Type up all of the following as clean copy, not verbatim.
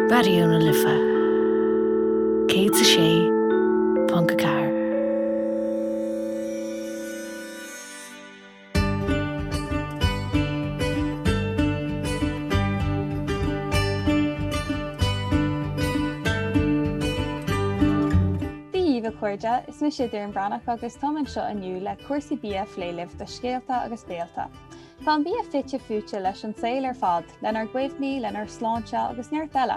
Raidió na Life 106.4. Dia dhaoibh a chairde, is mise Doireann Breathnach agus táim anseo inniu le cúrsaí bia a phlé libh do Scéalta agus Béalta. Tá an bia fite fuaite leis an saol ar fad, lenár gcuimhní, lenár sláinte agus neart eile.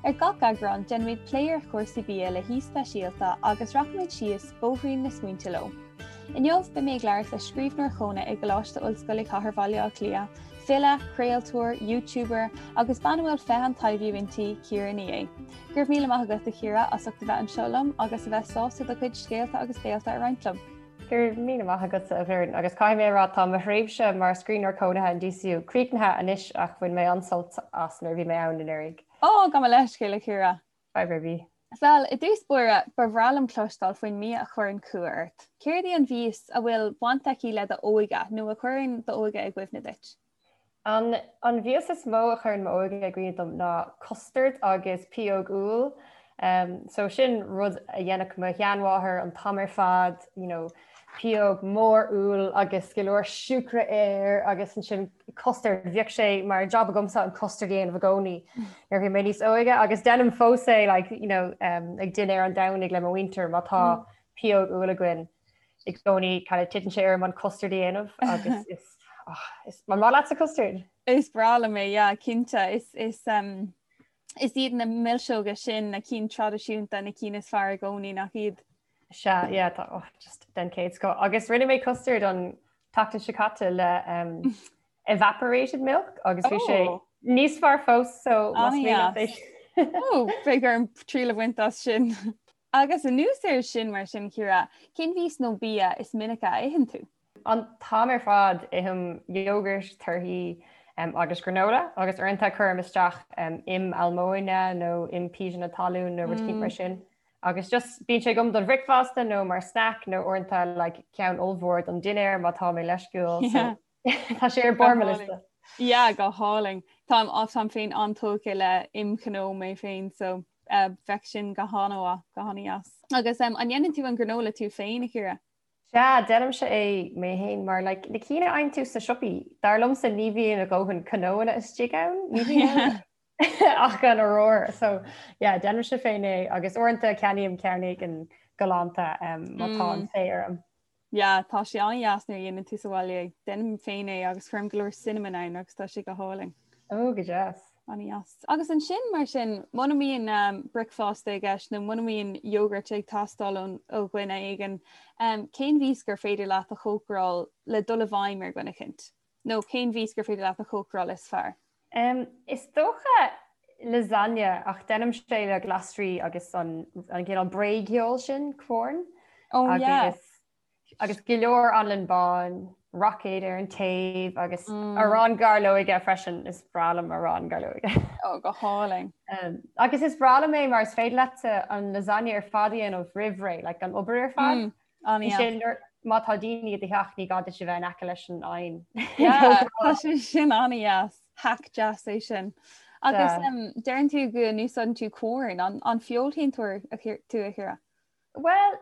Ar gach eagrán, déanfaimid plé ar chúrsaí bia le haoi speisialta agus rachaimid síos bóithrín na smaointe leo. Inniu, beidh mé ag labhairt le scríbhneoir chónaithe i gColáiste Ollscoile Chathair Bhaile Átha Cliath, file, craoltóir, YouTuber agus bean a bhfuil féith an taibhiú inti, Ciara Ní É. Go raibh míle maith agat, a Chiara, as ucht a bheith anseo liom agus a bheith sásta do chuid scéalta agus béalta a roinnt liom. Go raibh míle maith agatsa, a Dhoireann, agus caithfidh mé a rá tá mo thréimhse mar scríbhneoir cónaithe in DCU críochnaithe anois ach bhain mé an-sult as nuair a bhí mé ann anuraidh. Ó, gabh mo leithscéal, a Chiara. Fadhb ar bith. Bhuel, i dtús báire, ba bhreá liom cloisteáil faoin mbia a chuireann cumha ort. Céard í an mhias a bhfuil baint aici le d'óige nó a chuireann d'óige i gcuimhne duit? An an mhias is mó a chuireann m'óige i gcuimhne dom ná custard agus pióg úll. So sin rud a dhéanfadh mo sheanmháthair an t-am ar fad, you know, pióg mór úll agus go leor siúcra air agus ansin custard, bhíodh sé mar job agamsa an custard a dhéanamh i gcónaí nuair a bhí mé níos óige agus déanaim fós é like, you know, um, ag dinnéar an Domhnaigh le mo mhuintir má tá mm. pióg úll againn i gcónaí kind of titeann sé orm an custard a dhéanamh agus is, oh, is an maith leatsa custard? Is breá liom é, yeah, cinnte is, is, um, is iad na milseoga sin na cinn traidisiúnta na cinn is fearr i gcónaí nach iad? Sea, yeah, tá, oh, just den chéad scoth. Agus rinne mé custard an tseachtain seo caite le um, evaporated milk agus bhí sé oh. níos fearr fós so ah, oh, beidh orm triail a bhaint as sin. Agus anuas air sin mar sin Ciara, cén mhias nó bia is minice a itheann tú? An t-am ar fad ithim iógart, torthaí um, agus granola agus uaireanta cuirim isteach um, im almóinne nó im píseanna talún nó rud mm. mar sin. Agus just bíonn sé agam don bhricfeasta nó mar snack nó uaireanta like, ceann ollmhór don dinnéar má tá mé leisciúil. Yeah. So, tá sé ar barr mo liosta. Yeah, go hálainn. Táim táim féin an-tógtha le im chnó mé féin so uh, bheadh sin go han-mhaith, go han-dheas. Agus um, an ndéanann tú an granola tú féin a Chiara? Sea, déanaimse é mé féin mar like, na cinn a fhaigheann tú sna siopaí, dar liomsa ní bhíonn a dhóthain cnóanna istigh ann, ní bhíonn ann. ach an oiread. So yeah, déanaimse féin é agus uaireanta ceannaím ceann éigin galánta um, má tá an féith orm. Yeah, tá sé an-dheas nuair a dhéanann tú sa bhaile é. Déanaim féin é agus cuirim go leor cinnamon ann agus tá sé go hálainn. Ó, go deas. An-dheas. Agus ansin mar sin, muna mbíonn um, bricfeasta i gceist nó muna mbíonn iógart ag teastáil ón ó dhuine éigin, um, cén mhias gur féidir leat a chócaráil le dul i bhfeidhm ar dhuine eicínt? Nó cén mhias gur féidir leat a chócaráil is fearr? Is dócha lasagne ach déanaimse é le glasraí agus an an cineál bréigfheoil sin, Quorn. Oh yeah. Agus agus go leor anlann bán, roicéad ar an taobh agus mm. arán gairleoige freisin is breá liom arán gairleoige. Oh go hálainn. Um, agus is breá liom é mar is féidir leat an lasagne ar fad a dhéanamh roimh ré, like an obair ar fad. Mm. Ansin má tá daoine i do theach ní gá duit a bheith in aice leis an oigheann. Tá sé sin an-dheas, hack deas é sin. Agus deireann tú go n-úsáideann tú Quorn, an feoilséantóir tú a Chiara? Bhuel,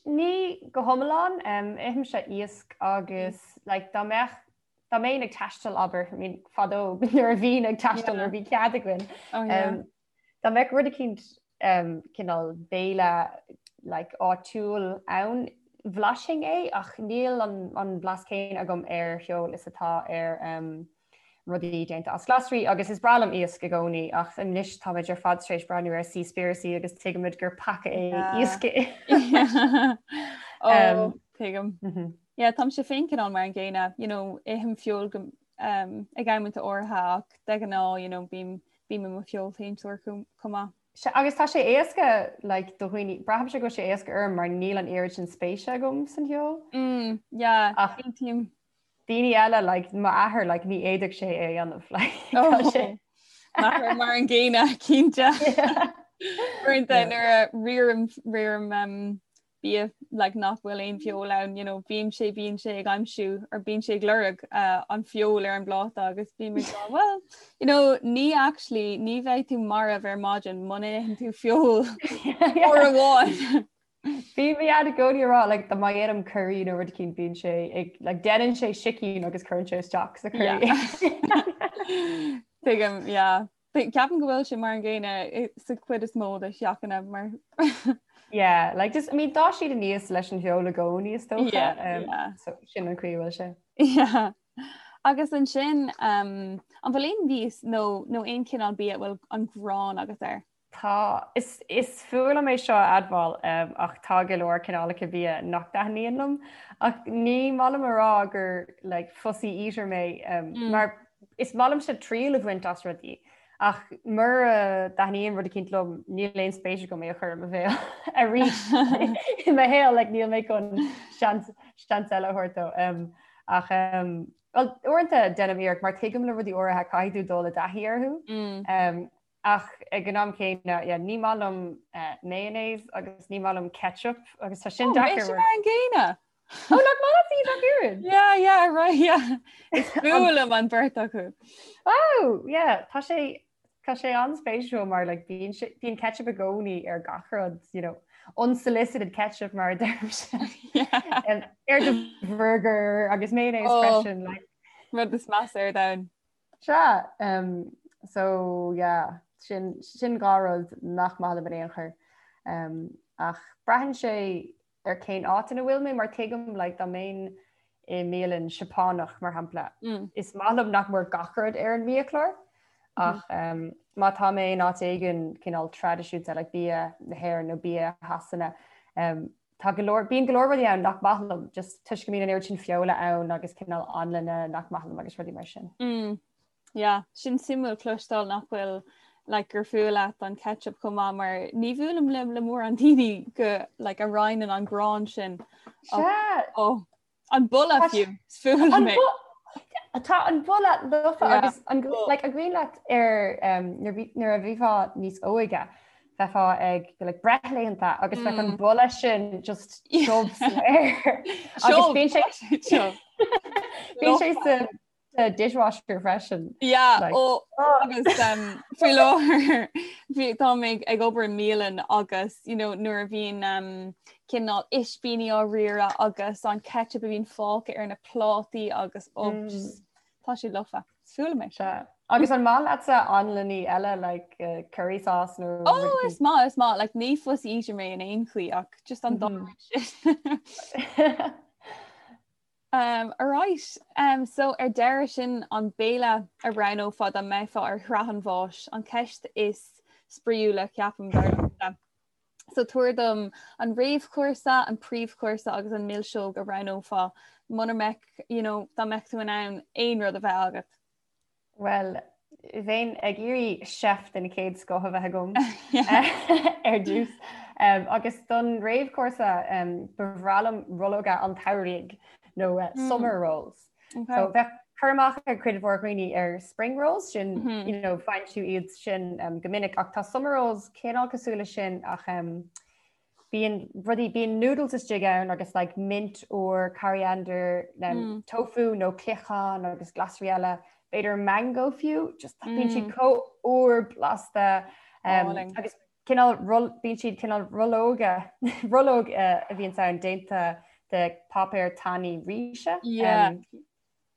ní go hiomlán, ithimse iasc agus like, dá mbeadh dá mbeinn ag taisteal abair, I mean, fadó nuair a bhínn ag taisteal nuair a bhí cead againn. Oh, yeah. Dá mbeadh rud eicínt cineál béile like áitiúil ann, bhlaisfinn é ach níl an blas céanna agam ar feoil is atá ar rudaí déanta as glasraí agus is breá liom iasc i gcónaí ach anois táimid ar fad tar éis breathnú ar Seaspiracy agus tuigimid gur peaca é iasc a ithe. Ó, tuigim. Yeah, táimse féin cineál mar an gcéanna, you know, ithim feoil go ag amanta áirithe ach de ghnáth, you know, bím Bím i mo feoilséantóir chomh maith. Sea, agus tá sé éasca like, do dhaoine, braithimse go bhfuil sé éasca orm mar níl an oiread sin spéise agam san fheoil. Mm, yeah, Ach aontaím. daoine eile, like, m'athair, like, ní fhéadfadh sé é a dhéanamh, like, tá Oh, sé. M'athair mar an gcéanna, cinnte. Uaireanta Yeah. nuair a riaraim riaraim um, Bia like nach bhfuil aon feoil ann, you know, bíonn sé bíonn sé ag aimsiú or bíonn sé ag lorg uh, an feoil ar an bpláta agus bím ag rá, well, you know, ní actually ní bheidh tú marbh ar maidin muna n-itheann tú feoil uair amháin. Bíonn mo dhaid i gcónaí ag rá like, dá mba dhéanaim curry nó rud eicínt bíonn sé ag like, déanann sé sicín agus cuireann sé isteach sa curry. Tuigim, yeah. Ceapaim go bhfuil sé mar an gcéanna sa chuid is mó de theachanna mar. Yeah, like just, I mean, d'fhás siad aníos leis an bhfeoil i gcónaí is dócha. Yeah, um, yeah. So sin an chaoi a bhfuil sé. Yeah. Agus ansin, um, an bhfuil aon mhias nó, nó aon chineál bia a bhfuil an ghráin agat air? Tá, is, is fuath liom é seo a admháil, um, ach tá go leor cineálacha bia nach dtaitníonn liom. Ach ní maith liom a rá gur like, fussy eater mé, um, mm. mar Is maith liomsa triail a bhaint as rudaí, ach mura dtaitníonn rud eicínt liom, níl aon spéis agam é a chur i mo bhéal arís i mo shaol, like, níl mé chun seans, seans eile a thabhairt dó. Um, ach um, well, uaireanta déanaim iarracht mar tuigim le rudaí áirithe caithfidh tú dul i dtaithí orthu. Mm. Um, Ach ag an am céanna, yeah, ní maith liom mayonnaise agus ní maith liom ketchup agus tá sin oh, deacair. mar an gcéanna. Oh, nach maith leat iad ach oiread? Yeah, yeah, right, yeah. Is fuath liom an bheirt acu. Oh, yeah, tá sé tá sé an-spéisiúil mar like, bíonn bíonn ketchup i gcónaí ar gach rud, you know, unsolicited ketchup mar a deirimse. Yeah. Ar do burger agus mayonnaise oh, freisin. Like. Rud is measa ar domhan. Sea, so yeah, sin, sin dhá rud nach maith liom in aon chor. Ach braitheann sé ar cén áit ina bhfuil mé mar tuigim like dá mbeinn i mbialann Seapánach mar shampla, is maith liom nach mór gach rud ar an mbiachlár ach má tá mé in áit éigin cineál traidisiúnta like bia na hÉireann nó bia Shasana, Tá go leor, bíonn go leor rudaí ann nach maith liom, just toisc go mbíonn an oiread sin feola ann agus cineál anlainne nach maith liom agus rudaí mar sin. Mm. Yeah, sin suimiúil cloisteáil nach bhfuil like, gur fuath leat an ketchup chomh maith mar ní bhuailim le le mórán daoine go like, a roinneann an ghráin sin. Sea. Oh, An boladh fiú, is fuath liom é. Tá an boladh lofa agus an like, an cuimhin leat ar um, nuair a bhífeá níos óige bheifeá ag like, breithlaethanta agus bheadh an mm. boladh sin just tiubh san aer. Agus bíonn sé bíonn sé sa sa dishwasher freisin. Yeah, like, ó agus um, faoi láthair tá mé ag obair i mbialann agus you know, nuair a bhíonn um, cineál ispíní á riaradh agus an ketchup a bhíonn fágtha ar na plátaí agus ó mm. just, tá sé lofa. Is fuath liom é. Sea. Agus an maith leatsa anlainní eile like uh, curry sauce nó Oh, is maith is maith like ní fussy eater mé in aon chaoi ach just an dá mm -hmm. sin. Um, alright, um, so ar deireadh sin an béile a roghnófá dá mbeifeá ar shraith an bháis, an ceist is spraíúla ceapaim dar liomsa. So tabhair dom an réamhchúrsa, an príomhchúrsa agus an milseog a roghnófá muna mbeadh, you know, dá mbeadh tú in ann aon rud a bheith agat. Bhuel, bheinn ag iarraidh chef den chéad scoth a bheith agam ar dtús. Agus don réamhchúrsa ba bhreá liom rollóga an tsamhraidh nó eh, hmm. summer rolls. Okay. So bheadh cur amach ag cuid mhór dhaoine ar spring rolls sin mm -hmm. you know, faigheann tú iad sin um, go minic ach tá summer rolls cineál cosúil leis sin ach um, Bíonn rudaí, bíonn noodles istigh ann agus like mint úr, coriander, mm. tofu nó cloicheán agus glasraí eile, b'fhéidir mango fiú, just mm. bíonn siad chomh úr blasta um, agus cineál bíonn siad cineál rollóga rollóg uh, a bhíonn ann déanta de páipéar tanaí ríse. Yeah. Um,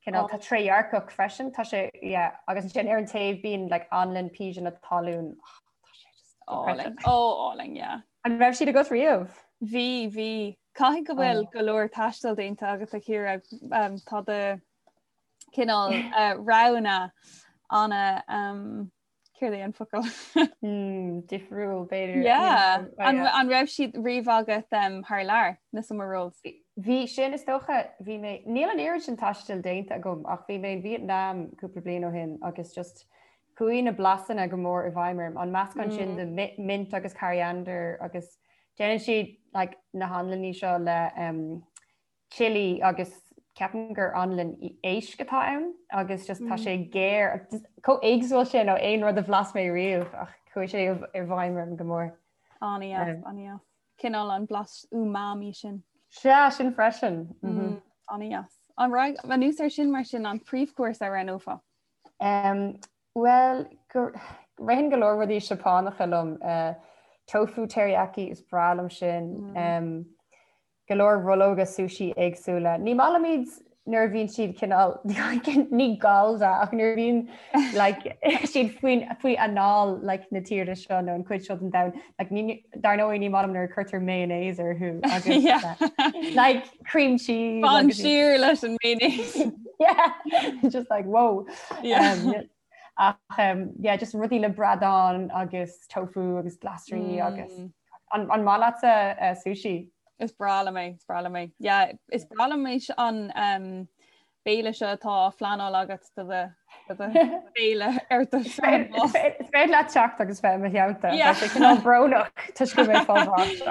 Cineál tá trédhearcach freisin, tá sé yeah, agus ansin ar an taobh bíonn like anlann píseanna talún. Oh, tá sé just álainn. Ó álainn, yeah. An raibh siad agat riamh? Bhí, bhí. Caithfidh go bhfuil oh. go leor taistil déanta agat a Chiara um, tá do cineál uh, roghanna ana um, Céard é an focal? Hmm, difriúil b'fhéidir. Yeah. An, an raibh siad riamh agat um, thar lear na summer rolls? Bhí sin is dócha bhí mé níl an oiread sin taistil déanta agam ach bhí mé in Vietnam cúpla bliain ó shin agus just chuaigh na blasanna go mór i bhfeidhm orm an meascán sin mm. de mint agus coriander agus déanann siad like, na hanlainní seo le um, chilli agus ceapaim gur anlann éisc atá ann agus just tá sé géar chomh éagsúil sin ó aon rud a bhlas mé riamh ach chuaigh sé i bhfeidhm orm go mór. An-deas, an-deas. Cineál an blas umami sin. Sea, sin freisin. Mm, An-deas. An raibh anuas ar sin mar sin an príomhchúrsa a roghnófá? Um, Bhuel, ritheann go leor rudaí Seapánacha liom. Uh, tofu teriyaki is breá liom sin. Mm. Um, go leor rollóga sushi éagsúla. Ní maith liom iad nuair a bhíonn siad cineál ní gallda ach nuair a bhíonn like, siad faoin faoi anáil like, na tíre seo nó an cuid seo den domhan. Like, ní, dar ndóigh ní maith liom nuair a cuirtear mayonnaise orthu agus Yeah. uh, like cream cheese Fan agus- siar leis an mayonnaise. yeah just like whoa Yeah. um, ach um, yeah just rudaí le bradán agus tofu agus glasraí agus Mm. an, an maith leatsa uh, sushi Is breá liom é, is breá liom é. Yeah, is breá liom é an um, béile seo atá á phleanáil agat do do do do bhéile ar do Is féidir leat teacht agus bheith i mo theannta. Yeah. Tá sé cineál brónach toisc go mbeidh fáil bháis.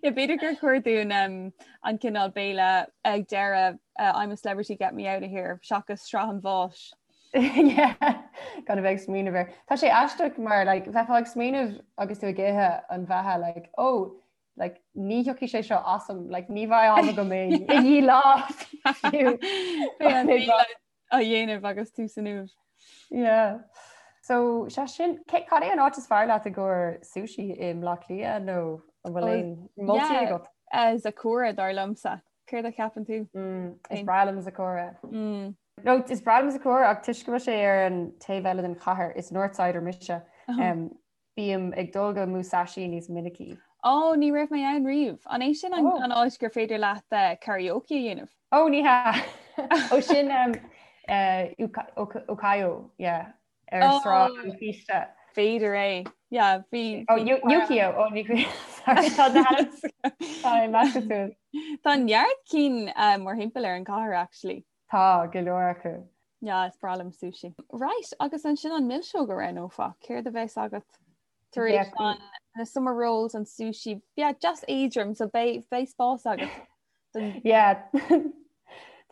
Yeah, b'fhéidir gur chóir dúinn um, an cineál béile ag deireadh uh, I'm a celebrity get me out of here seachas sraith an bháis. Yeah, gan a bheith ag smaoineamh air. Tá sé aisteach mar like, bheifeá ag smaoineamh agus tú ag ithe an bheatha like, oh, like, ní thiocfaidh sé seo asam, like, ní bheidh am agam é i ndiaidh lá fiú. Beidh an béile á dhéanamh agus tú san uaimh. Yeah. So sé sin, cé cad é an áit is fearr leat i gcomhair sushi i mBleá Cliath nó an bhfuil aon moltaí Yeah, agat? uh, Sakura dar liomsa. Céard a cheapann tú? Mm, is breá liom Sakura. Mm. No, is breá liom Sakura ach toisc go bhfuil sé ar an taobh eile den chathair, is Northsider mise, um, bím ag dul go Musashi níos minicí. Ó, ní raibh mé ann riamh. An é sin an Oh. an áit gur féidir leat eh, karaoke a dhéanamh? Ó, ní hea. Ó sin um, uh, Uka- Oka- Ukiyo, yeah, ar Oh. Sráid an Chíste. B'fhéidir é. Yeah, bhí Ó, bhí Yu- Yukio, ó, ní Sorry, tá na Tá measctha suas. Tá neart cinn eh, mórthimpeall ar an chathair actually. Tá go leor acu. Yeah, is breá liom sushi. Right, agus ansin an milseog a roghnófá, céard a bheas agat tar éis an na summer rolls an sushi, yeah, just éadrom, so beidh beidh spás agat. Don... Yeah.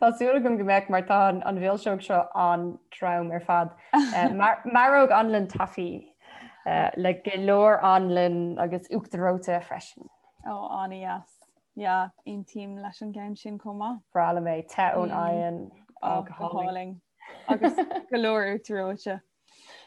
Tá súil agam go mbeidh mar tá an, an mhilseog seo an-trom ar fad. Uh, mar, maróg anlann taifí uh, le go leor anlann agus uachtar reoite freisin. Ó, oh, an-deas. Yeah, aontaím leis an gceann sin chomh maith. Breá liom é te ón oigheann Ó, go hálainn. Agus go leor uachtar reoite.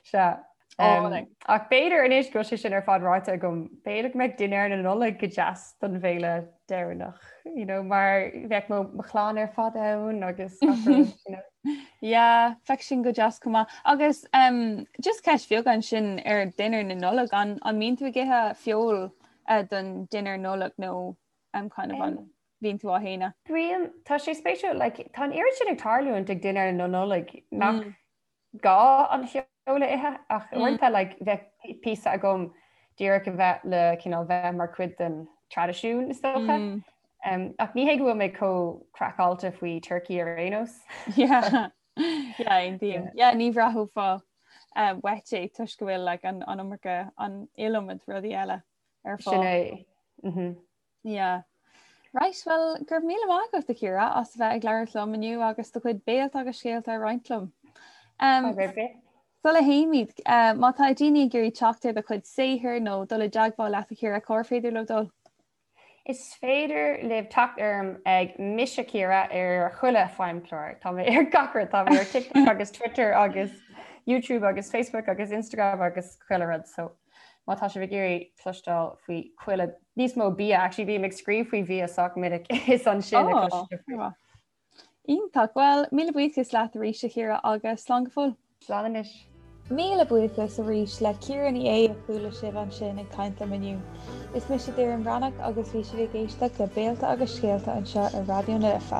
Sea. Álainn. Ach b'fhéidir anois go bhfuil sé sin ar fad ráite agam, b'fhéidir go mbeadh dinnéar na Nollag go deas don bhéile deireanach, you know, mar bheadh mo mo chlann ar fad ann agus gach rud, you know. Yeah, bheadh sin go deas chomh maith. Agus um, just ceist bheag ansin ar dinnéar na Nollag, an, an mbíonn tú ag ithe feoil uh, don dinnéar Nollag nó um, kind of an bhíonn tú á shéanadh? Bíonn, tá sé spéisiúil, like, tá an oiread sin ag tarlúint ag dinnéar na Nollag nach mm. gá an feoil a ithe ach mm. uaireanta like, bheadh píosa agam díreach a bheith le cineál bheith mar chuid den traidisiún is dócha. Mm. Um, ach ní hé go bhfuil mé chomh craiceáilte faoi turkey ar aon nós. Yeah. Yeah, indeed. Yeah, ní bhraithfeá um, uait é toisc go bhfuil like, an, an iomarca an iliomad rudaí eile ar Sin fáil. é. Mhm. Yeah. Right, well, go raibh míle maith agat a Chiara as a bheith ag labhairt liom inniu agus do chuid béalta agus scéalta a roinnt liom. Um, Fadhb ar bith. Sula théimid, uh, má tá daoine ag iarraidh teacht ar do chuid saothair nó dul i dteagmháil leat a Chiara, cár féidir leo dul? Is féidir libh teacht orm ag Mise Ciara ar chuile feidhmchlár. Tá mé ar gach rud, tá mé ar TikTok agus Twitter agus YouTube agus Facebook agus Instagram agus chuile rud. So má tá sibh ag iarraidh cloisteáil faoi chuile níos mó bia, actually bím ag scríobh faoi bhia sách minic is ansin a Oh, chloisfidh sibh faoi. Iontach. Bhuel, míle buíochas leat arís a Chiara agus slán go fóill. Slán anois. Míle buíochas arís le Ciara Ní É a chuala sibh ansin ag caint liom inniu. Is mise Doireann Bhreathnach agus bhí sibh ag éisteacht le Béalta agus Scéalta anseo ar Raidió na Life.